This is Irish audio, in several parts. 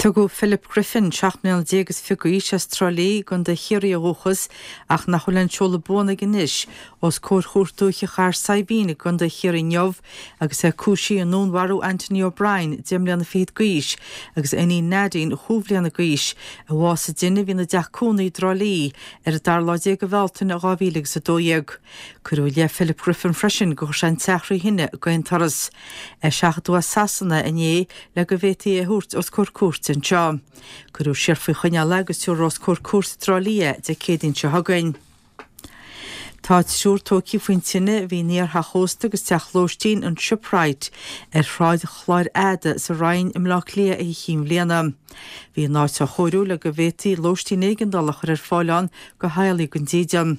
Tugadh Philip Griffin, 17 mbliana is fiche d'aois, as Trá Lí, i gContae Chiarraí ó dhúchas, ach nach bhfuil aon seoladh buan aige anois, os comhair Chúirt Dúiche Chathair Saidhbhín i gContae Chiarraí inniu agus é cúisithe i ndúnmharú Anthony O'Brien, 10 mbliana fichead d'aois, agus a iníon Nadine, chúig bhliana d'aois, a bhásaigh i dtine a bhí ina dteach cónaí i dTrá Lí ar an dara lá déag de Bhealtaine 2012. Cuireadh i leith Philip Griffin freisin gur chuir sé an teach thrí thine d'aon turas. Eiseachadadh as Sasana inné le go bhféadfaí é a thabhairt os comhair cúirte anseo. Cuireadh siar faoi choinneáil é agus tabharfar os comhair cúirte i dTrá Lí é Dé Céadaoin seo chugainn. Tá triúr tógtha faoin tine a bhí in iar-theach ósta agus teach lóistín an Shipwright ar Shráid Chláir Fhada sa Rinn i mBleá Cliath Oíche Chinn Bhliana. Bhí an áit á chóiriú le go bhféadfaí lóistín éigeandála a chur ar fáil ann do theaghlaigh gan dídean.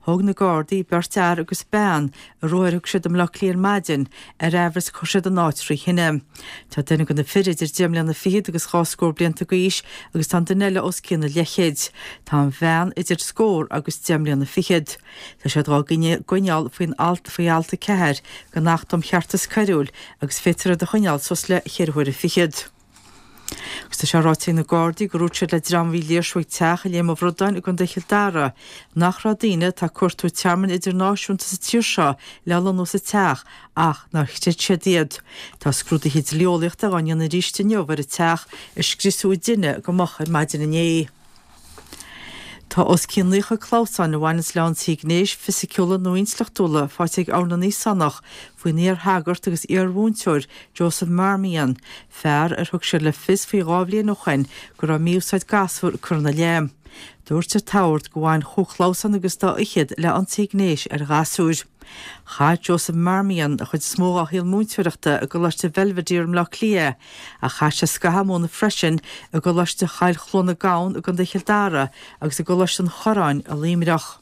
Thóg na Gardaí beirt fhear agus bean ar ruathar a thug siad i mBleá Cliath ar maidin ar aimhreas gur chuir siad an áit thrí thine. Tá duine de na fir idir deich mbliana fichead agus dhá scór blianta d'aois agus tá an duine eile os cionn an leithchéid. Tá an bhean idir scór agus deich mbliana fichead. Tá siad dhá gcoinneáil faoin alt faoi alt 4 den Acht um Cheartas Coiriúil agus féadfar iad a choinneáil suas le cheithre huaire fichead. Agus tá sé ráite ag na Gardaí gur dhúirt siad le dream a bhí ag léirsiú ag teach i Léim an Bhradáin i gContae Chill Dara nach raibh daoine atá ag cuartú tearmainn idirnáisiúnta sa tír seo le lonnú sa teach ach nár chreid siad iad. Tá scrúduithe dlí-eolaíochta dhá ndéanamh arís inniu ar an teach a scriosadh i dtine go moch ar maidin inné. Tá os cionn 90 clamhsán a bhaineanns le ionsaithe gnéis, fisiciúla nó intleachtúla faighte ag Ord na nÍosánach faoin iar-shagart agus iar-mhúinteoir Joseph Marmion, fear ar thug siad le fios faoi dhá bhliain ó shoin go raibh mí-úsáid gasúr curtha ina leith. Dúirt an tOrd gur bhain chúig chlamhsán agus dá fhichead le ionsaithe gnéis ar ghasúir. Chaith Joseph Marmion an chuid is mó dá shaol múinteoireachta i gColáiste Bhelvedere i mBleá Cliath ach chaith sé scaitheamh ag múineadh freisin i gColáiste Choill Chluana Gabhann i gContae Chill Dara agus i gColáiste an Chorráin i Luimneach.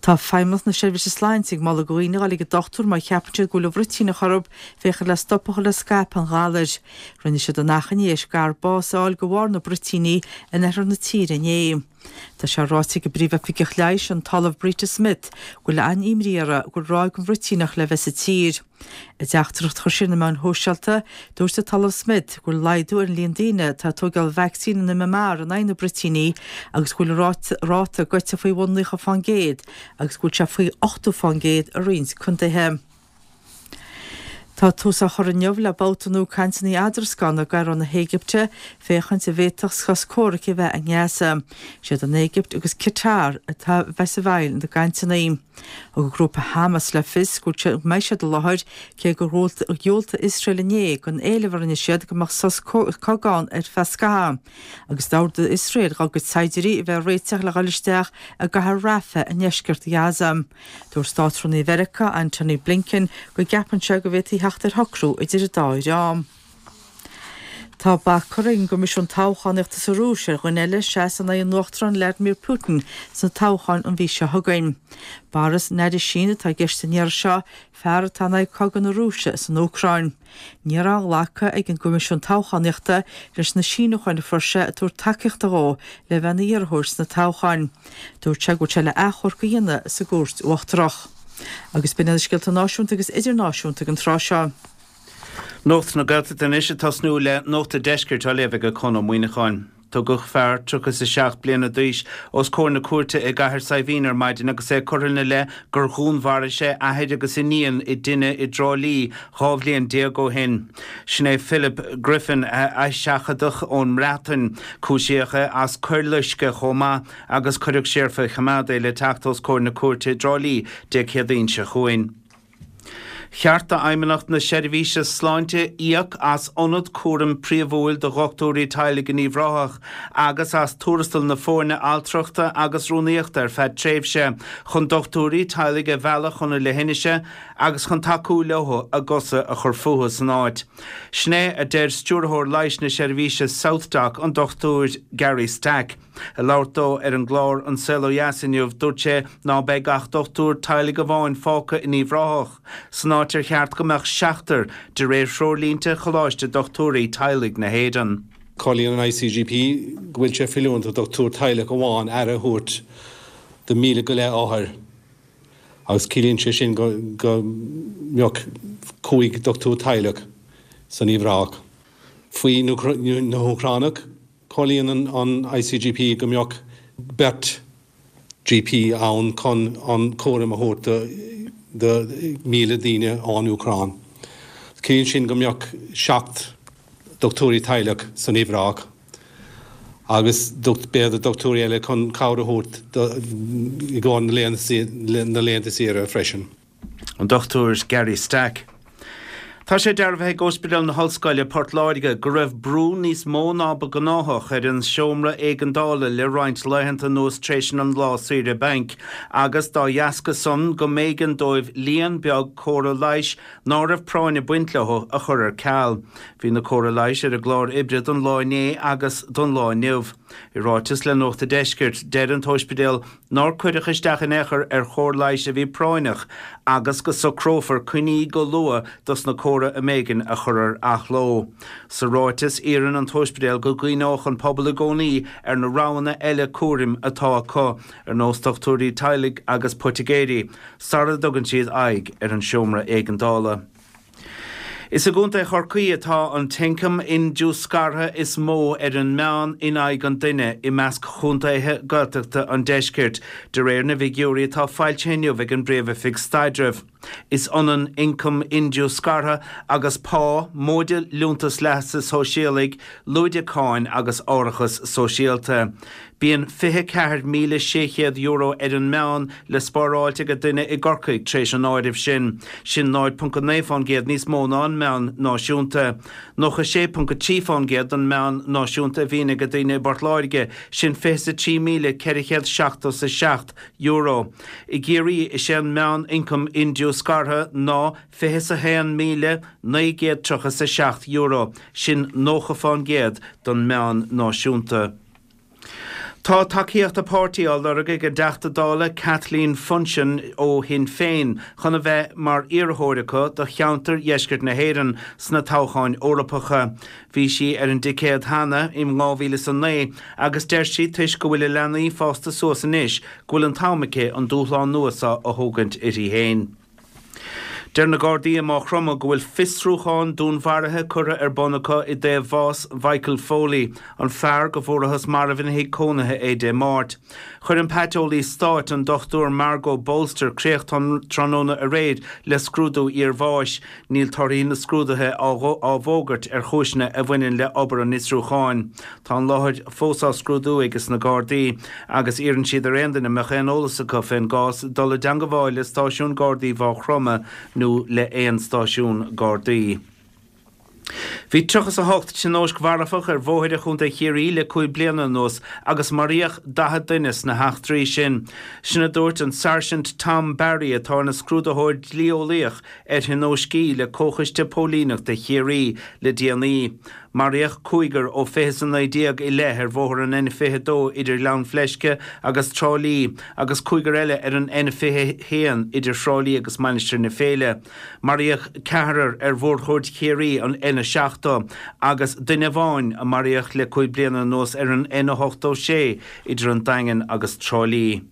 Tá Feidhmeannacht na Seirbhíse Sláinte ag moladh do dhaoine a dhul ag an dochtúir má cheapann siad go bhfuil an bhruitíneach orthu féachaint le stop a chur le scaipeadh an ghalair. Rinne siad an achainí théis gadhar bás a fháil de bharr na bruitíní in oirthear na tíre inné. Tá sé ráite ag an bPríomh-Oifigeach Leighis, an tOllamh Brita Smith, go bhfuil an-imní orthu go bhfuil ráig den bhruitíneach le bheith sa tír. I dteachtaireacht a chuir sí ar na meáin shóisialta, dúirt an tOllamh Smith go bhfuil laghdú ar an líon daoine atá ag tógáil vacsaín an MMR in aghaidh na bruitíní agus go bhfuil an ráta goite faoi bhun 90% agus go bhfuil sé faoi 80% i roinnt contaetha. Tá tús á chur inniu le babhta nua cainteanna eadrascána i gCairo na hÉigipte féachaint an bhféadfadh sos comhraic a bheith i nGaza. Siad an Éigipt agus Qatar atá a bheas i bhfeighil na gcainteanna. Thug an grúpa Hamas le fios go mbeidh siad i láthair, cé gur dhiúltaigh Iosrael inné don éileamh a rinne siad go mbeadh sos cogaidh ann ar feadh scaithimh, agus d'ordaigh Iosrael dá gcuid saighdiúirí a bheith ag réiteach le dhul isteach i gcathair Rafah i ndeisceart Ghaza. Dúirt Státrúnaí Mheiriceá, Antony Blinken, go gceapann sé go bhféadfaí theacht ar shocrú idir an dá dhream. Tá bac curtha ag an gCoimisiún Toghchánaíochta sa Rúis ar dhuine eile seasamh in aghaidh an Uachtaráin Vladimir Putin sna toghcháin an mhí seo chugainn. Boris Nadezhdin atá i gceist an iarraidh seo, fear atá in aghaidh cogadh na Rúise san Úcráin. Ní raibh glactha ag an gCoimisiún Toghchánaíochta leis na síniúcháin a fuair sé ag tabhairt tacaíochta dhó le bheith ina iarrthóir sna toghcháin. Dúirt sé go bhfuil sé le achomharc a dhéanamh sa gCúirt Uachtarach. Agus b'in iad na scéalta náisiúnta agus idirnáisiúnta ag an tráth seo. Nuacht na Gaeltachta anois ag tosnú le Nuacht an Deiscirt á léamh ag Conn Ó Muíneacháin. Tugadh fear 37 bliana d'aois os comhair na cúirte i gCathair Saidhbhín ar maidin agus é curtha ina leith gur dhúnmharaigh sé athair agus iníon i dtine i dTrá Lí 12 bhliain ó shin. Sin é Philip Griffin a eiseachadadh ón mBreatain. Cúisíodh é as coir loiscthe chomh maith agus cuireadh siar faoi choimeád é le teacht os comhair na cúirte i dTrá Lí Dé Céadaoin seo chugainn. Cheart d'Fheidhmeannacht na Seirbhíse Sláinte íoc as ionad cúraim príomhúil do dhochtúirí teaghlaigh in Uíbh Ráthach agus as tuarastal na foirne altrachta agus rúnaíochta ar feadh tréimhse chun dochtúirí teaghlaigh a mhealladh chun na leithinise agus chun tacú leo a gcosa a chur fúthu san áit. Sin é a deir Stiúrthóir Leighis na Seirbhíse SouthDoc, an Dr Gary Stack. Ag labhairt dó ar an gclár An Saol Ó Dheas inniu, dúirt sé ná beidh ach dochtúir teaghlaigh amháin fágtha in Uíbh Ráthach, san áit ar cheart go mbeadh seachtar, de réir threoirlínte Choláiste Dochtúirí Teaghlaigh na hÉireann. Comhairlíonn an ICGP go bhfuil sé feiliúnach do dhochtúir teaghlaigh amháin aire a thabhairt do 1,000 go leith othar agus ciallaíonn sé sin go mbeadh 5 dochtúir teaghlaigh san Uíbh Ráthach. Faoi na hÚcránaigh, comhairlíonn an ICGP go mbeadh beirt GP ann chun an cúram a thabhairt do 1,000 daoine ón Úcráin. Ciallaíonn sin go mbeadh 7 dochtúirí teaghlaigh san Uíbh Ráthach agus b'fhéidir dochtúirí eile chun cabhair a thabhairt i gcomhair na laethanta saoire freisin. An Dr Gary Stack. Tá sé dearbhaithe ag Ospidéal na hOllscoile, Port Láirge, go raibh brú níos mó ná ba gnáthach ar an seomra éigeandála le roinnt laethanta anuas tréis an lá saoire bainc agus dá dheasca san go mb'éigean dóibh líon beag córa leighis ná raibh práinn ag baint leo a chur ar ceal. Bhí na córa leighis ar an gclár oibre don lá inné agus don lá inniu. I ráiteas le Nuacht a' Deiscirt, deir an t-óispidéal nár cuireadh isteach in aon chor ar chóir leighis a bhí práinneach agus go socrófar coinní go luath dos na córa a mb'éigean a chur ar athló. Sa ráiteas, iarrann an t-óispidéal go gcuimhneodh an pobal i gcónaí ar na roghanna eile cúraim atá acu, ar nós dochtúirí teaghlaigh agus poitigéirí, sara dtugann siad aghaidh ar an seomra éigeandála. Is i gContae Chorcaí atá an t-ioncam indiúscartha is mó ar an meán in aghaidh an duine i measc chontaetha Gaeltachta an deiscirt, de réir na bhfigiúirí atá foilsithe inniu ag an bPríomh-Oifig Staidrimh. Is ionann ioncam indiúscartha agus pá, móide liúntas leasa shóisialaigh, lúide cáin agus árachas sóisialta. Bíonn €24,600 ar an meán le spáráilt ag duine i gCorcaigh tar éis an áirimh sin. Sin 0.9% níos mó ná an meán náisiúnta. 96.3% den meán náisiúnta a bhíonn ag daoine i bPort Láirge, sin €23,477. I gCiarraí, is é an meán-ioncam indiúscartha ná €21,937, sin 90% den meán náisiúnta. Tá tacaíocht a páirtí á lorg ag an dTeachta Dála Kathleen Funchion ó Shinn Féin chun a bheith mar iarrthóir acu do cheantar dheisceart na hÉireann sna toghcháin Eorpacha. Bhí sí ar an dticéad cheana in 2009 agus deir sí toisc go bhfuil a leanaí fásta suas anois go bhfuil an t-am aici an dúshlán nua seo a thógaint uirthi féin. Deir na Gardaí i Maigh Chromtha go bhfuil fiosrúchán dúnmharaithe curtha ar bun acu i dtaobh bhás Mhichael Foley, an fear go bhfuarathas marbh ina thigh cónaithe é Dé Máirt. Chuir an Paiteolaí Stáit, an Dr Margot Bolster, críoch tráthnóna aréir le scrúdú iarbháis. Níl torthaí na scrúduithe á bhfógairt ar chúiseanna a bhaineann le obair an fhiosrúcháin. Tá an láthair fós á scrúdú ages na Gardaí agus iarrann siad ar aon duine a mbeadh aon eolas acu fén gcás dul i dteangabháil le stáisiún Gardaí Mhaigh Chromtha nó le aon stáisiún Gardaí. Bhí 38 tionóisc mharfach ar bhóithre Chontae Chiarraí le 5 bliana anuas agus maraíodh 40 duine sna heachtraí sin. Sin a dúirt an Sáirsint Tom Barry atá ina scrúdaitheoir dlí-eolaíoch ar thionóiscí le Comhchoiste Póilíneachta Chiarraí le déanaí. Maraíodh cúigear ó 2019 i leith ar bhóthar an N22 idir Gleann Fleisce agus Trá Lí agus cúigear eile ar an N21 idir Thrá Lí agus Mainistir na Féile. Maraíodh ceathrar ar mhórchuaird Chiarraí, an N70, agus duine amháin a maraíodh le 5 bliana anuas ar an N86 idir an Daingean agus Trá Lí.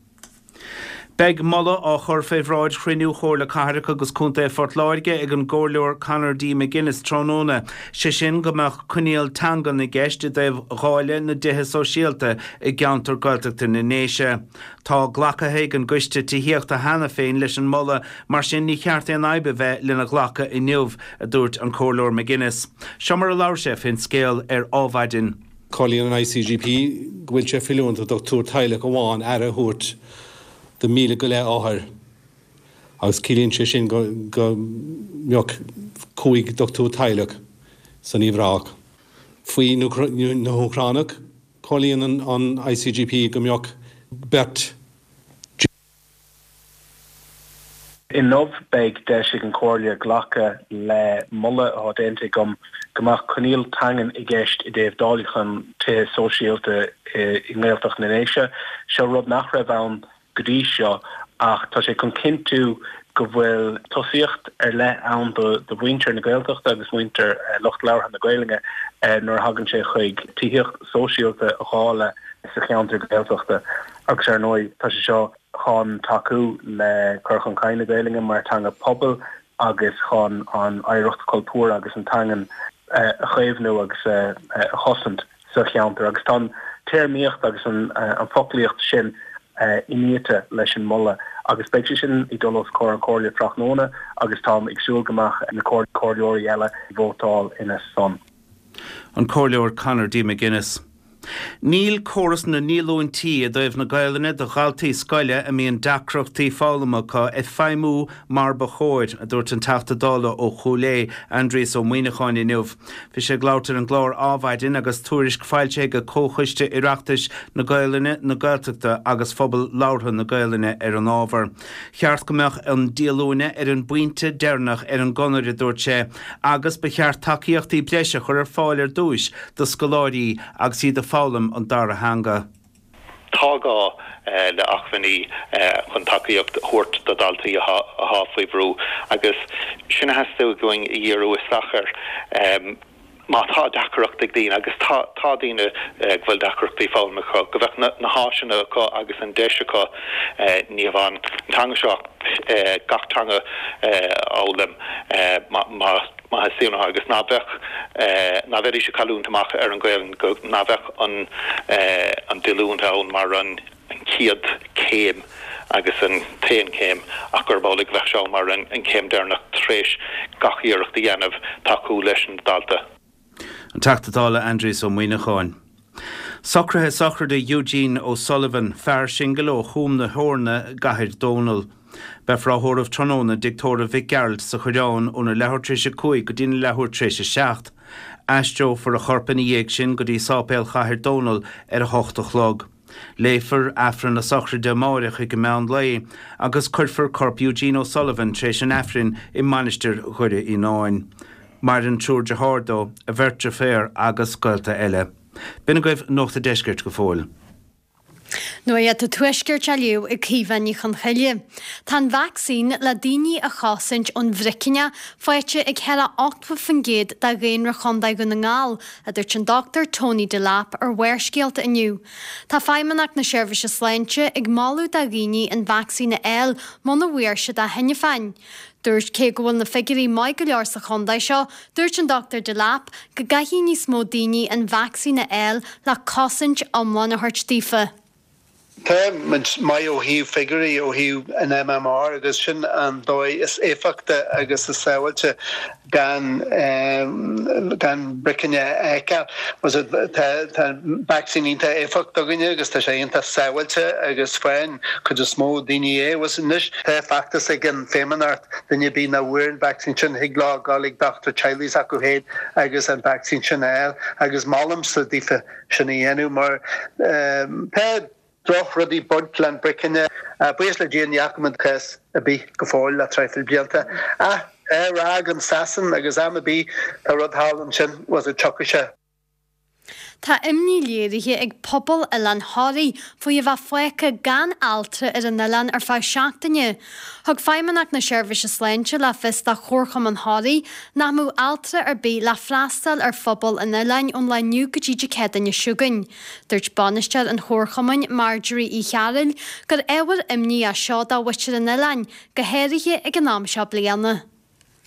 Beidh moladh á chur fé bhráid chruinniú Chomhairle Cathrach agus Contae Phort Láirge ag an gComhairleoir Conor D. McGuinness tráthnóna, sé sin go mbeadh coinníoll teangan i gceist i dtaobh dháileadh na dtithe sóisialta i gceantar Gaeltachta na nDéise. Tá glacaithe ag an gCoiste Tithíochta cheana féin leis an moladh, mar sin ní cheart aon fhadhb a bheith lena ghlacadh inniu, a dúirt an Comhairleoir McGuinness. Seo mar a labhair sé fén scéal ar Ádhmhaidin. Comhairlíonn an ICGP go bhfuil sé feiliúnach do dhochtúir teaghlaigh amháin aire a thabhairt do 1,000 go leith othar agus ciallaíonn sé sin go mbeadh 5 dochtúir teaghlaigh san Uíbh Ráthach. Faoi na hÚcránaigh, comhairlíonn an ICGP go mbeadh beirt. Inniu beidh deis ag an Chomhairle glacadh le moladh atá déanta agam go mbeadh coinníoll teangan i gceist i dtaobh dáileachán tithe sóisialta i nGaeltacht na nDéise. Seo rud nach raibh ann go dtí seo ach tá sé chun cinntiú go bhfuil tosaíocht ar leith ann do mhuintir na Gaeltachta agus muintir lucht labhartha na Gaelainne nuair a thagann sé chuig tithíocht sóisialta a dháileadh sa cheantar Gaeltachta agus ar ndóigh tá sé seo chun tacú le cur chun cinn na Gaelainne mar teanga pobail agus chun an oidhreacht chultúrtha agus an teangan. a chaomhnú agus a chosaint sa cheantar agus tá an téarmaíocht agus an foclaíocht sin iniata leis an moladh agus beidh sé sin ag dul os comhair an Chomhairle tráthnóna agus táim ag súil go mbeadh na comhairleoirí eile ag vótáil ina son. An Comhairleoir Conor D. McGuinness. Níl córas na ndíolúintí i dtaobh na Gaelainne do dhaltaí scoile a mbíonn deacrachtaí foghlama acu ag feidhmiú mar ba chóir, a dúirt an Teachta Dála ó Chúil Aodha, Aindrias Ó Muimhneacháin inniu. Bhí sé ag labhairt ar an gclár Adhmhaidin agus tuairisc foilsithe ag Comhchoiste Oireachtais na Gaelainne, na Gaeltachta agus Phobal Labhartha na Gaelainne ar an ábhar. Cheart go mbeadh an díolúine ar an bpointe deireanach ar an gconair, a dúirt sé, agus ba cheart tacaíochtaí breise a chur ar fáil ar dtúis do scoláirí agus iad ag foghlaim an dara theanga. Tá gá le acmhainní chun tacaíocht a thabhairt do dhaltaí atá faoi bhrú agus sin a theastaigh uainn a dhíriú isteach air. Má tá deacracht ag daoine, agus tá, tá daoine go bhfuil deacrachtaí foghlama acu, go mbeadh na háiseanna acu agus an deis acu ní hamháin an teanga seo ach gach teanga a fhoghlaim má theastaíonn uathu agus ná beadh, ná bheidís ag cailliúint amach ar an Ghaelainn, go, ná bheadh an an díolúint ann mar an chéad chéim agus an t-aon chéim ach gurb amhlaidh go bheadh sé ann mar an chéim deireanach tar éis gach iarracht a dhéanamh tacú leis an dalta. An Teachta Dála Aindrias Ó Muimhneacháin. Socruithe sochraide Eugene O'Sullivan, fear singil ó Chúm na hEorna i gCathair Dónall. Beifear á thórramh tráthnóna i dTigh Tórraimh Mhic Gearailt sa Choireán óna leathuair tar éis a 5 go dtína leathuair tar éis a 7. Aistreofar a chorp ina dhiaidh sin go dtí Sáipéal Chathair Dónall ar a hocht a chlog. Léifear Aifreann na sochraide amáireach ag an meán lae agus cuirfear corp Eugene O'Sullivan tar éis an Aifrinn i Mainistir Dhoire Fhíonáin. Maireann triúr dearthár dó, a bheirt deirféar agus gaolta eile. B'in agaibh Nuacht a' Deiscirt go fóill. Nuacht an Tuaiscirt á léamh ag Caoimhe Ní Chonchoille. Tá an vacsaín le daoine a chosaint ón bhricinneach faighte ag thar 80% de dhaonra Chontae Dhún na nGall, a dúirt an Dr Tony Delap ar Bharrscéalta inniu. Tá Feidhmeannacht na Seirbhíse Sláinte ag moladh do dhaoine an vacsaín a fháil muna bhfuair siad é cheana féin. Dúirt cé go bhfuil na figiúirí maith go leor sa chontae seo, dúirt an Dr Delap go gcaithfidh níos mó daoine an vacsaín a fháil le cosaint iomlán a thabhairt daofa. Tá muid maith ó thaobh figiúirí, ó thaobh an MMR agus sin an dóigh is éifeachta agus is sábháilte gan gan bricne a fheiceáil. Tá an vacsaín iontach éifeachtach againne agus tá sé iontach sábháilte agus faigheann cuid is mó daoine é. Anois tá feachtas ag an Feidhmeannacht, duine ar bith nach bhfuair an vacsaín sin, thig leo dul ag dochtúir teaghlaigh s'acu féin agus an vacsaín sin a fháil agus molaimse daofa sin a dhéanamh mar tá drochrudaí ag baint le an bricne. Buíochas le Dia ní fhaca muid cás ar bith go fóill le traidhfil blianta. Ach tá RnaG in Sasain agus am ar bith tá rud thall ansin was it tiocfaidh sé. Tá imní léirithe ag pobal Oileán Thoraí faoi a bheith fágtha gan altra ar an oileán ar feadh seachtaine. Thug Feidhmeannacht na Seirbhíse Sláinte le fios do Chomharchumann Thoraí nach mbeadh altra ar bith le freastal ar phobal an oileáin ón lá inniu go dtí Dé Céadaoine seo chugainn. Dúirt bainisteoir an Chomharchumainn, Marjorie Uí Chearúil, gur ábhar imní é seo do mhuintir an oileáin, go háirithe ag an am seo bliana.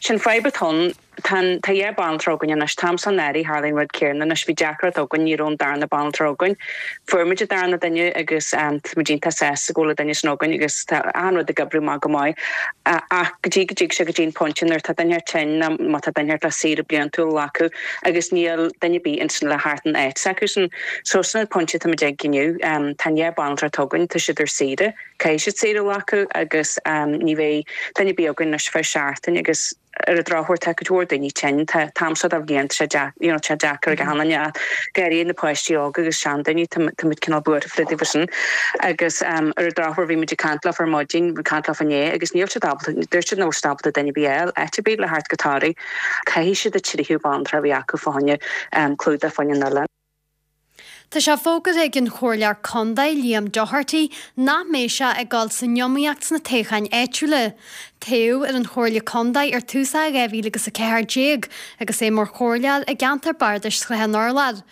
Sin fadhb atá ann. Tá an, tá dhá banaltra againn anois. An t-am seo anuraidh tharlaigh an rud céanna anois. Bhí deacracht againn, ní raibh an darna banaltra againn. Fuair muid an darna duine agus tá muid iontach sásta go bhfuil an duine sin againn agus tá achan rud ag oibriú maith go maith. Ach go dtí go dtig sé go dtí an pointe nuair atá duine tinn nó má tá duine le saoire bliantúil a ghlacadh agus níl duine ar bith ansin le theacht in áit s'acusan. So sin an pointe atá muid ag inniu. Tá an dhá banaltra atá againn, tá siad ar saoire. Caithfidh siad saoire a ghlacadh agus ní bheidh duine ar bith againn anois ar feadh seachtain agus ar an drochuair tá cuid mhór daoine tinn. Tá an t-am seo de bhliain tá sé deacair, you know, tá sé deacair ag achan duine ach go háirithe na páistí óga agus seandaoine, tá tá muid cineál buartha fá dtaobh sin. Agus ar an drochuair bhí muid ag caint leofa ar maidin, ag caint leofa inné agus níl siad ábalta, dúirt siad nach bhfuil siad ábalta duine ar bith a fháil áit ar bith le theacht go Toraigh. Caithfidh siad an tríú banaltra a bheith acu fá choinne clúdach fá choinne an oileáin. Tá sé fógartha ag an Chomhairleoir Contae, Liam Doherty, nach mbeidh sé ag dul san iomaíocht sna toghcháin áitiúla. Toghadh ar an Chomhairle Contae ar tús 2014 agus é mar chomhairleoir i gceantar bardais Shrath an Urláir.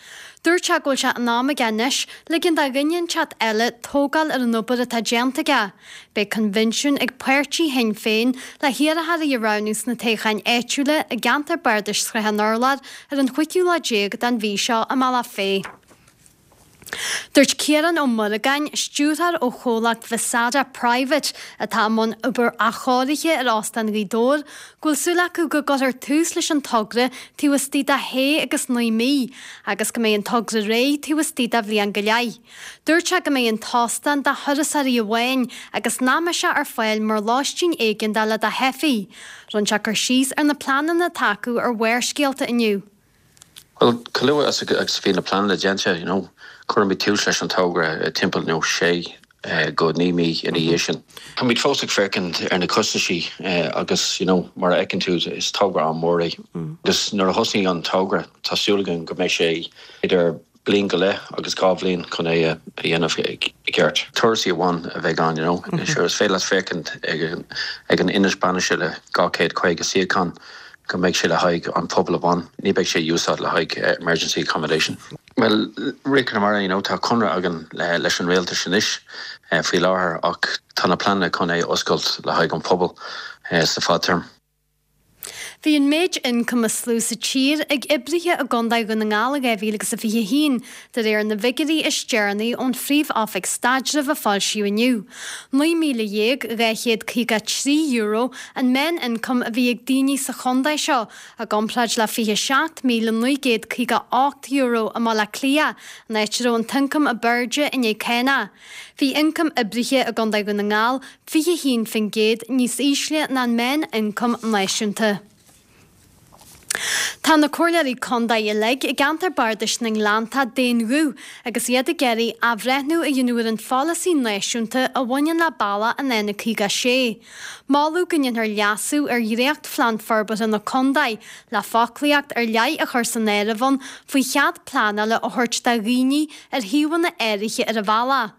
Dúirt sé go bhfuil sé in am aige anois ligean do dhuine inteacht eile tógáil ar an obair atá déanta aige. Beidh coinbhinsiún ag páirtí Shinn Féin le hiarrthóirí a roghnú sna toghcháin áitiúla i gceantar bardais Shrath an Urláir ar an chúigiú lá déag den mhí seo i mBealach Féich. Dúirt Ciarán Ó Muireagáin, stiúrthóir ó chomhlacht Visada Private atá i mbun obair athchóirithe ar Óstán Ghaoth Dobhair, go bhfuil súil acu go gcuirfear tús leis an togra taobh istigh de shé agus naoi mí agus go mbeidh an togra réidh taobh istigh de bhliain go leith. Dúirt sé go mbeidh an t-óstán do thurasóirí amháin agus nach mbeidh sé ar fáil mar lóistín éigeandála do theifigh. Rinne sé cur síos ar na pleananna atá acu ar Bharrscéalta inniu. Bhuel, chomh luath agus a bhí na pleananna déanta, you know, cuirfimid tús leis an togra timpeall, you know, sé go naoi mí ina dhiaidh sin. Táimid fós ag féachaint ar na costaisí agus, you know, mar a fheiceann tú, is togra an-mhór é. Agus nuair a thosnaíonn an togra, tá súil againn go mbeidh sé idir bliain go leith agus 2 bhliain chun é a dhéanamh i gceart. Turasóirí amháin a bheidh ann, you know. Sure, is féidir leat féachaint ag an ionad bainise le 250 suíochán go mbeidh sé le haghaidh an pobal amháin, ní beidh sé úsáid le haghaidh emergency accommodation. Bhuel, Rith Conamara, you know, tá conradh againn leis an rialtas anois faoi láthair ach tá na pleananna chun é a oscailt le haghaidh an pobal sa fadtéarma. Bhí an méid ioncaim is lú sa tír ag oibrithe i gContae Dhún na nGall i 2021, de réir na bhfigiúirí is deireanaí ón Phríomh-Oifig Staidrimh a foilsíodh inniu. €19,253 an meán-ioncam a bhí ag daoine sa chontae seo, i gcomparáid le €27,958 i mBaile Átha Cliath, an áit a raibh an t-ioncam ab airde i ndiaidh cánach. Bhí ioncam oibrithe i gContae Dhún na nGall 21% níos ísle ná an meán-ioncam náisiúnta. Tá na comhairleoirí contae uilig i gceantar bardais na nGleanntach d'aon ghuth agus iad ag iarraidh athbhreithniú a dhéanamh ar an pholasaí náisiúnta a bhaineann le bealach an N56. Moladh go ndéanfar leasú ar dhréachtphlean forbartha na contae le foclaíocht ar leith a chur san áireamh ann faoi chead pleanála a thabhairt do dhaoine ar shuíomhanna áirithe ar an bhealach.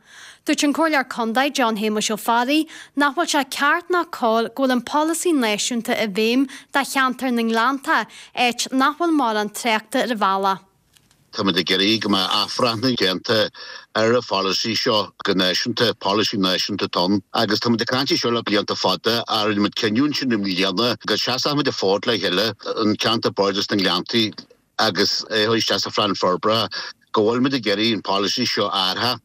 Dúirt an Comhairleoir Contae John Shéamuis Ó Fearraigh nach bhfuil sé ceart ná cóir go bhfuil an polasaí náisiúnta i bhfeidhm do cheantar na nGleanntach, áit nach bhfuil mórán tráchta ar an bhealach. Táimid ag iarraidh go mbeadh athbhreithniú déanta ar an pholasaí seo go náisiúnta, polasaí náisiúnta atá ann agus táimid ag caint air seo le blianta fada ach rinne muid cinneadh ansin i mbliana go seasfadh muid an fód le chéile, an ceantar bardais na nGleanntaí, agus é a chur isteach sa phlean forbartha, go bhfuilimid ag iarraidh an polasaí seo a athrú.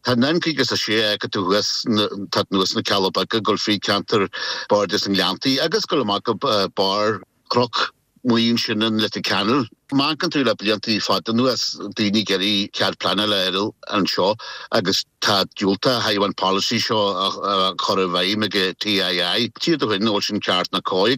Tá an N56 a fheiceann tú thuas, tá anuas na Cealla Beaga, ag dul fríd ceantar Bardais na nGleanntaí agus ag dul amach go barr Chnoc Muí ansin in Leitir Ceanainn. Má amharcann tú le blianta fada anuas, daoine ag iarraidh cead pleanála a fháil anseo agus tá diúltach ó thaobh an polasaí seo a chur i bhfeidhm ag TII. Tchífidh tú féin an bhfuil sin ceart ná cóir.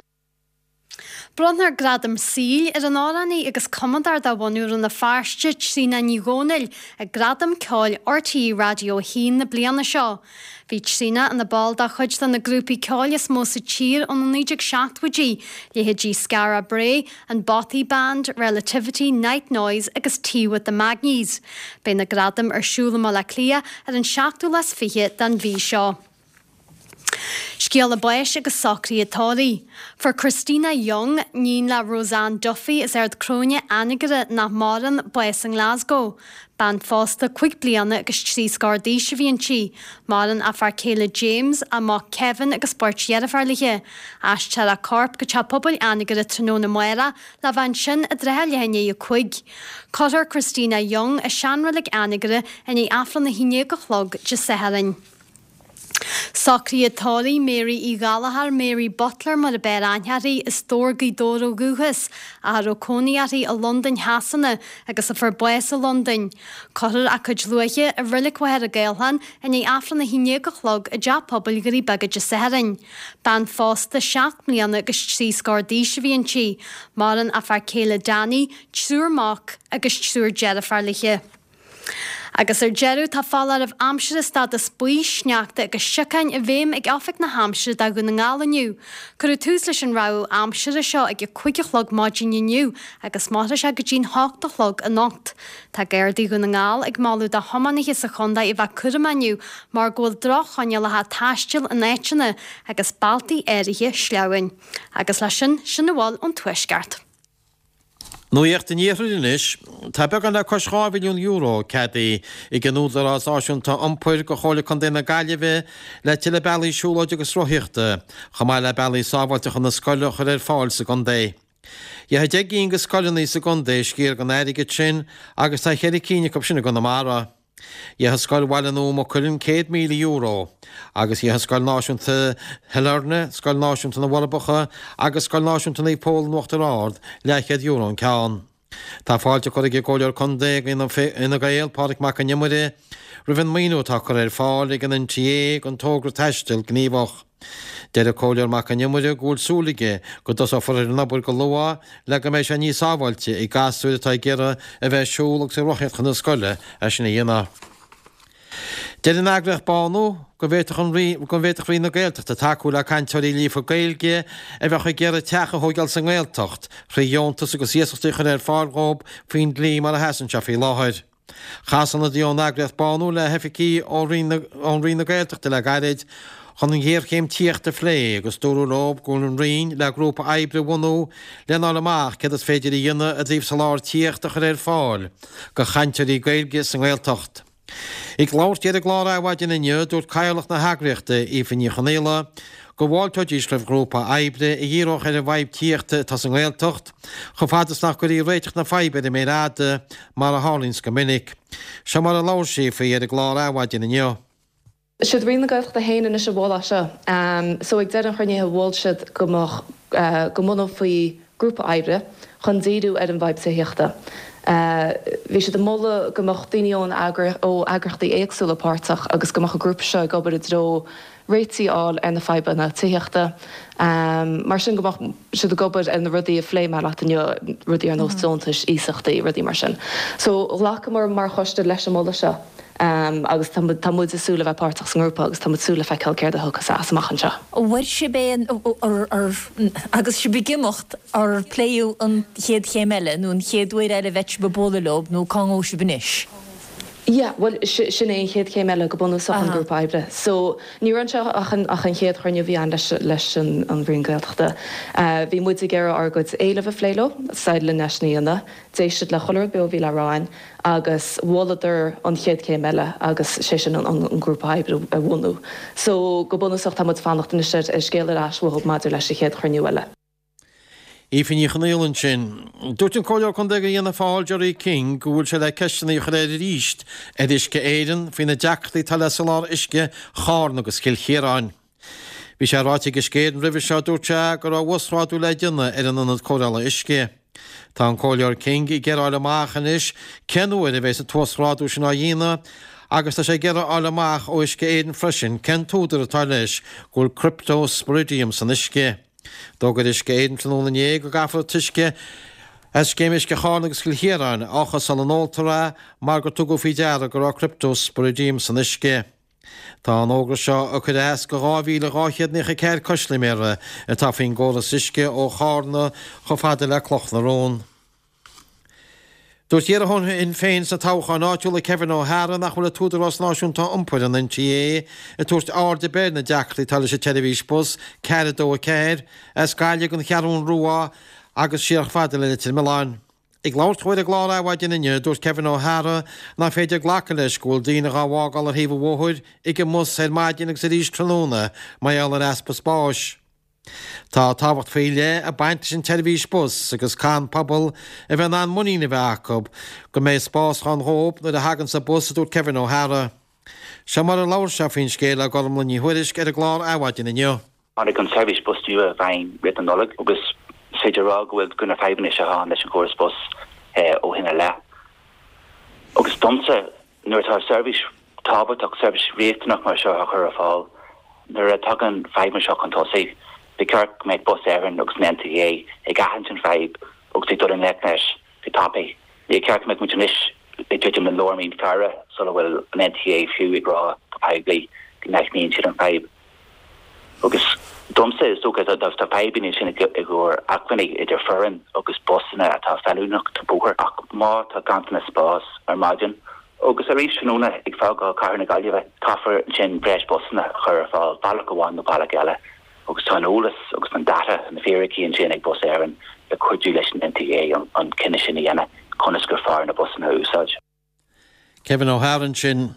Bronnfar Gradam Saoil ar an amhránaí agus cumadóir de bhunadh Rann na Feirste, Tríona Ní Dhomhnaill, ag Gradaim Ceoil RTÉ Raidió 1 na bliana seo. Bhí Tríona ina ball de chuid de na grúpaí ceoil is mó sa tír ó na 1970idí, leithéidí Skara Brae, an Bothy Band, Relativity, Night Noise agus Tea with the Magnies. Beidh na gradaim ar siúl i mBaile Átha Cliath ar an seachtú lá is fiche den mhí seo. Scéala báis agus socruithe tórraimh. Fuair Christina Young, níon le Roseanne Duffy as Ard Cróine, Anagaire, nach maireann, bás i nGlasgow. Bean phósta 5 bliana agus 3 scór d'aois a bhí inti. Maireann a fear céile James, a mac Kevin agus beirt dheirféar léi. Aistreofar a corp go Teach Pobail Anagaire tráthnóna amárach le bheith ansin i dtrátha leath i ndiaidh 5. Cuirfear Christina Young i seanreilig Anagaire i ndiaidh Aifreann a haon déag a chlog Dé Sathairn. Socruithe tórraimh Mary Uí Ghallchóir, Mary Butler mar a b'fhearr aithne uirthi, as Dobhar, Gaoth Dobhair ó dhúchas, ach a raibh cónaí uirthi i Londain Shasana agus a fuair bás i Londain. Cuirfear a cuid luaithe i Reilig Mhachaire Gathlán i ndiaidh Aifreann 11 a chlog i dTeach Pobail Dhoirí Beaga Dé Sathairn. Bean phósta 7 mbliana agus 3 scór d'aois a bhí inti. Maireann a fear céile Danny, triúr mac agus triúr deirféar léi. Agus ar deireadh, tá foláireamh aimsire stádas buí, sneachta agus siocáin i bhfeidhm ag Oifig na hAimsire do Dhún na nGall inniu. Cuireadh tús leis an rabhadh aimsire seo ag a 5 a chlog maidin inniu agus mairfidh sé go dtí'n 8 a chlog anocht. Tá Gardaí Dhún na nGall ag moladh do thiománaithe sa chontae a bheith cúramach inniu mar go bhfuil droch-choinníollacha taistil in áiteanna agus bealtaí áirithe sleamhain. Agus leis sin, sin a bhfuil ón Tuaisceart. Nuacht an Iarthair anois. Tá beagán le cois €2 mhilliún ceadaithe ag an Údarás Náisiúnta Iompair do Chomhairle Contae na Gaillimhe le tuilleadh bealaí siúlóide agus rothaíochta, chomh maith le bealaí sábháilte chun na scoile a chur ar fáil sa gcontae. Gheobhaidh 10 gcinn de scoileanna sa gcontae sciar den airgead sin agus tá cheithre cinn acu sin i gConamara. Gheobhaidh Scoil Bhaile Nua Maigh Cuilinn €100,000 agus gheobhaidh Scoil Náisiúnta Shailearna, Scoil Náisiúnta na bhForbacha agus Scoil Náisiúnta Naomh Pól in Uachtar Ard leathchéad euro an ceann. Tá fáilte curtha ag an gComhairleoir Contae ag Fhine Gael, Pádraig Mac Con Iomaire, roimh an maoiniú atá curtha ar fáil ag an NTA don togra Taisteal Gníomhach. Deir an Comhairleoir Mac Con Iomaire go bhfuil súil aige go dtosófar ar an obair go luath le go mbeidh sé níos sábháilte ag gasúir atá ag iarraidh a bheith ag siúl agus ag rothaíocht chun na scoile é sin a dhéanamh. Deir an eagraíocht Bánú go bhféadfadh an go bhféadfadh Roinn na Gaeltachta tacú le cainteoirí líofa Gaeilge a bheadh ag iarraidh teach a thóigeáil sa nGaeltacht thrí dheontas agus iasachtaí a chur ar fáil dhóibh faoin dlí mar a sheasann sé faoi láthair. Chas ionadaí ón eagraíocht Bánú le hoifigigh ó Roinn na Gaeltachta le gairid chun an ghéarchéim tithíochta a phlé agus dúradh leo go bhfuil an Roinn le grúpa oibre a bhunú lena fháil amach céard is féidir a dhéanamh i dtaobh soláthar tithíochta a chur ar fáil do chainteoirí Gaeilge sa nGaeltacht. Ag labhairt di ar an gclár Adhmhaidin inniu, dúirt Cathaoirleach na heagraíochta, Aoife Ní Chonaola, go bhfáilteoidís roimh ghrúpa oibre a dhíreodh ar an bhfadhb tithíochta atá sa nGaeltacht, chomh fada is nach gcuirfí réiteach na faidhbe ar an méar fhada, mar a tharlaíonns go minic. Seo mar a labhair sí faoi ar an gclár Adhmhaidin inniu. Siad Roinn na Gaeltachta féin anois a mhol é seo. So ag deireadh an chruinnithe mhol siad go mbeadh, go mbunófaí grúpa oibre chun díriú ar an bhfadhb tithíochta. Bhí siad ag moladh go mbeadh daoine ón ó eagraíochtaí éagsúla páirteach agus go mbeadh an grúpa seo ag obair i dtreo réitigh a fháil ar na fadhbanna tithíochta. Mar sin go mbeadh siad ag obair ar na rudaí a phléigh mé leat inniu, rudaí ar nós deontais, iasachtaí, rudaí mar sin. So ghlacamar mar choiste leis an moladh seo agus tá tá muid ag súil le bheith páirteach sa ngrúpa agus tá muid ag súil le feiceáil céard a thiocfas as amach anseo. An bhfuair sibh aon, agus sibh ag imeacht, ar pléadh an chéad chéim eile nó an chéad uair eile a bheidh sibh ag bualadh leo nó cá ngabhfaidh sibh anois? Yeah, bhuel, sin é an chéad chéim eile go bunúsach, an grúpa oibre. So, ní raibh anseo ach an, ach an chéad chruinniú a bhí ann leis, leis an, an Roinn Gaeltachta. Bhí muid ag iarraidh ár gcuid éileamh a phlé leo, d'éirigh linn é sin a dhéanamh. D'éist siad le chuile rud beo a bhí le rá againn agus mholadar an chéad chéim eile agus sé sin an, an grúpa oibre a bhunú. So, go bunúsach tá muid ag fanacht anois ar, ar scéal ar ais uathu maidir leis an chéad chruinniú eile. Aoife Ní Chonaola ansin. Dúirt an Comhairleoir Contae do Fhianna Fáil, Gerry King, go bhfuil sé le ceisteanna a chur air arís ar Uisce Éireann faoi na deacrachtaí atá le soláthar uisce Charna agus Chill Chiaráin. Bhí sé ráite ag Uisce Éireann roimhe seo, dúirt sé, go raibh uasghrádú le déanamh ar an ionad cóireála uisce. Tá an Comhairleoir King ag iarraidh a fháil amach anois cén uair a bheas an t-uasghrádú sin á dhéanamh agus tá sé ag iarraidh a fháil amach ó Uisce Éireann freisin cén t-údar atá leis go bhfuil cryptosporidium san uisce. D'fhógair Uisce Éireann tráthnóna inné go gcaithfear an t-uisce as Scéim Uisce Charna agus Chill Chiaráin a fhiuchadh sula n-óltar é mar gur tugadh faoi deara go raibh cryptosporidium san uisce. Tá an fhógra seo ag cur as go 2,294 custaiméara atá faoin gcóras uisce ó Chárna chomh fada le Cloch na Rón. Dúirt iarrthóir Shinn Féin sna toghcháin áitiúla Kevin O'Hara nach bhfuil an tÚdarás Náisiúnta Iompair, an NTA, ag tabhairt aird ar bith ar na deacrachtaí atá leis an tseirbhís bus 424 as Gaillimh don Cheathrún Rua agus siar chomh fada le Leitir Mealláin. Ag labhairt dó ar an gclár Adhmhaidin inniu, dúirt Kevin O'Hara nach féidir glacadh leis go bhfuil daoine dhá bhfágáil ar thaobh an bhóthair ag an mbus ar maidin agus arís tráthnóna mar gheall ar easpa spáis. Tá tábhacht faoi leith ag baint leis an tseirbhís bus agus caithfidh an pobal a bheith in ann muinín a bheith acu go mbeidh spás ann dhóibh nuair a thaganns an bus, a dúirt Kevin O'Hara. Seo mar a labhair sé faoin scéal le Gormlaith Ní Thuairisg ar an gclár Adhmhaidin inniu. Tháinig an tseirbhís bus nua i bhfeidhm roimh na Nollag agus is féidir a rá go bhfuil go na fadhbanna seo ann leis an chóras bus ó shin i leith. Agus domsa, Nuair atá seirbhís tábhachtach, seirbhís riachtanach mar seo á chur ar fáil, nuair a tagann fadhbanna seo chun tosaigh, ba cheart go mbeadh Bus Éireann agus an NTA ag aithint an fadhb agus ag dul i ngleic leis go tapaidh. Níor cheart go mbeadh muid anois. ag druidim le lár mí an Feabhra sula bhfuil an NTA fiú ag rá go poiblí go n-aithníonn siad an fadhb. Agus domsa, is dócha, tá fadhbanna ansin i gcomhair acmhainní idir foireann agus busanna atá feiliúnach don bóthar ach má tá ganntanas spás ar maidin agus arís tráthnóna ag fágáil cathair na Gaillimhe, caithfear ansin breis busanna a chur ar fáil, bealach amháin nó bealach eile. Agus tá an eolas agus an data, na fíricí ansin ag Bus Éireann le cuidiú leis an NTA an cinneadh sin a dhéanamh conas gur fearr na busanna a úsáid. Kevin O'Hara ansin.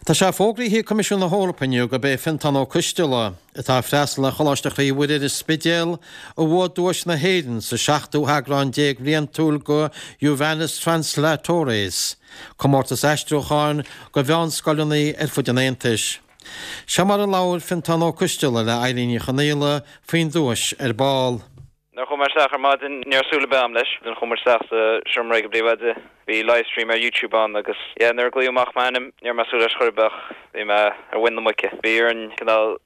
Tá sé fógraithe ag Coimisiún na hEorpa inniu gurb é Fiontán Ó Coisteala, atá ag freastal ar Choláiste Chroí Mhuire ar an Spidéal, a bhuaigh duais na hÉireann sa seachtú heagrán déag bhliantúil de Juvenes Translatores, comórtas aistriúcháin do mheánscoileanna ar fud an Aontais. Seo mar a labhair Fiontán Ó Coisteala le Eilín Ní Chonaola faoin duais ar ball. Nuair a chuaigh mé isteach ar maidin, ní raibh súil ar bith agam leis. Then chuaigh muid isteach sa seomra ag an bpríomhoide, bhí livestream ar YouTube ann agus yeah nuair a glaodh amach m'ainm, ní raibh mé ag súil leis chor ar bith ach bhí mé ar mhuin na muice. Bhí orainn cineál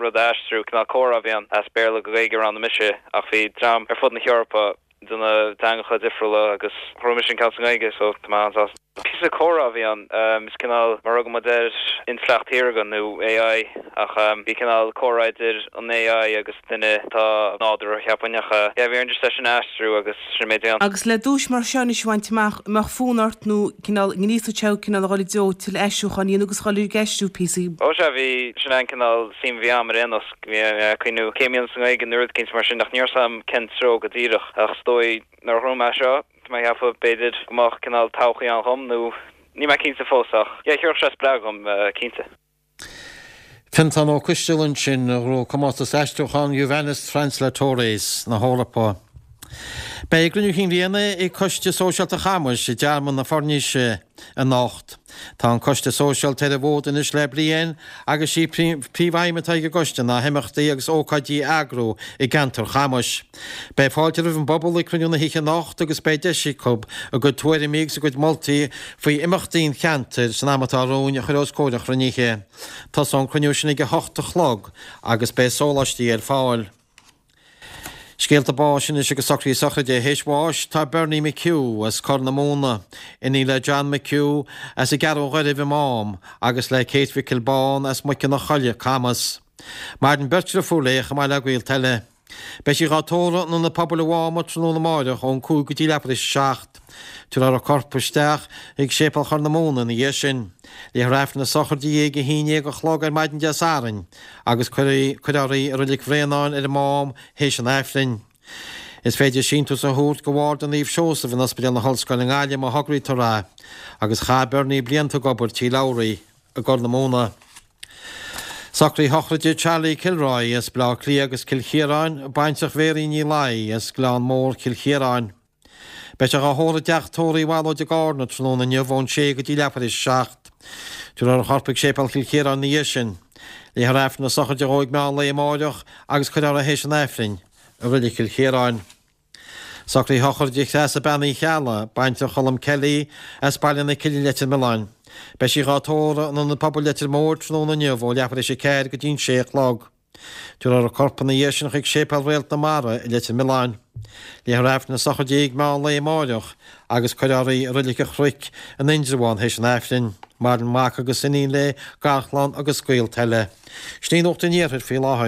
rud a aistriú, cineál comhrá a bhí ann, as Béarla go Gaeilge a roghnaigh mise ach bhí dream ar fud na hEorpa de na teangacha difriúla agus ghnóthaigh mise an ceann sa nGaeilge so tá mé an-sásta. Píosa comhrá a bhí ann, is cineál mar a thugann muid air intleacht shaorga nó AI ach bhí cineál comhrá idir an AI agus duine atá nádúrtha cheapfainn ach yeah bhí orainn just é sin a aistriú agus sin an méid a bhí ann. Agus le duais mar seo anois a bhaint amach, an mbeadh fonn ort nó cineál ngríosódh sé thú cineál a dhul i dtreo tuilleadh aistriúcháin a dhéanamh agus a dhul ag aistriú píosaí? Ó sea bhí, sin é an cineál suim a bhí agam ar aon nós, bhí mé ag cuimhniú céim a dhéanamh sa nGaeilge nó rud eicínt mar sin ach ní raibh 's agam cén treo go díreach ach is dóigh nuair a ghnóthaigh mé seo, Tá mé ag ceapadh, b'fhéidir, go mbeadh cineál todhchaí ann dhom, nó níl mé cinnte fós ach yeah, thabharfadh sé spreagadh dhom, cinnte. Fiontán Ó Coisteala ansin, a ghnóthaigh comórtas aistriúcháin Juvenes Translatores na hEorpa. Beidh cruinniú Chinn Bhliana ag Coiste Sóisialta Chamais i dTearmann na Foirníse anocht. Tá an Coiste Sóisialta ar an bhfód anois le bliain agus sí príomhaidhm atá ag an gcoiste ná himeachtaí agus ócáidí a eagrú i gceantar Chamais. Beidh fáilte roimh an bpobal ag cruinniú na hoíche anocht agus beidh deis acu a gcuid tuairimí agus a gcuid moltaí faoi imeachtaí an cheantair san am atá romhainn a chur os comhair an chruinnithe. Tosóidh an cruinniú sin ag a hocht a chlog agus beidh sóláistí ar fáil. Scéalta báis anois agus socruithe sochraide. Théis bháis tá Bernie McHugh as Corr na Móna, iníon le John McHugh as an gCeathrú Ghairbh i Mám agus le Kate Mhicil Bán as Muice na Coille, Camas. Maireann beirt dhriofúr léi chomh maith le gaolta eile. Beidh sí dhá tórramh in Ionad Pobail an Mháma tráthnóna amáireach ón 5 go dtí leathuair tar éis a 7. Tabharfar a corp isteach chuig Séipéal Chorr na Móna ina dhiaidh sin. Léifear Aifreann na sochraide di ag 11 a chlog ar maidin Dé Sathairn agus cuirfear í i Reilig Bhréanainn ar an Mám théis an Aifrinn. Is féidir síntiús a thabhairt go Bharda Naomh Seosamh in Ospidéal na hOllscoile i nGaillimh má thograítear é, agus chaith Bernie blianta ag obair Tí Labhraí i gCorr na Móna. Socruithe sochraide Charlie Kilroy as Baile Átha Cliath agus Cill Chiaráin, baintreach Mhéirín Ní Laoi as Gleann Mór, Cill Chiaráin. Beidh sé dhá thórramh i dteach tórraimh Uí Bhallóid i gCarna tráthnóna inniu ón sé go dtí leathuair tar éis a 7. Tabharfar a chorp chuig Séipéal Chill Chiaráin ina dhiaidh sin. Léifear Aifreann na sochraide dhó ag meán lae amáireach agus cuirfear é théis an Aifrinn i Reilig Chill Chiaráin. Socruithe sochraide Threasa Bean Uí Cheallaigh, baintreach Cholm Kelly, as Baile na Cille Leitir Mealláin. Beidh sí dhá tórramh in Ionad Pobail Leitir Móir tráthnóna inniu ó leathuair tar éis a 4 go dtí an sé a chlog. Tabharfar a corp ina dhiaidh sin chuig Séipéal Réalt na Mara i Leitir Mealláin. Léifear Aifreann na sochraide di ag meán lae amáireach agus cuirfear í i Reilig an Chnoic in Indreabhán théis an Aifrinn. Maireann mac agus iníon léi, garchlann agus gaolta eile. Sin í Nuacht an Iarthair faoi láthair.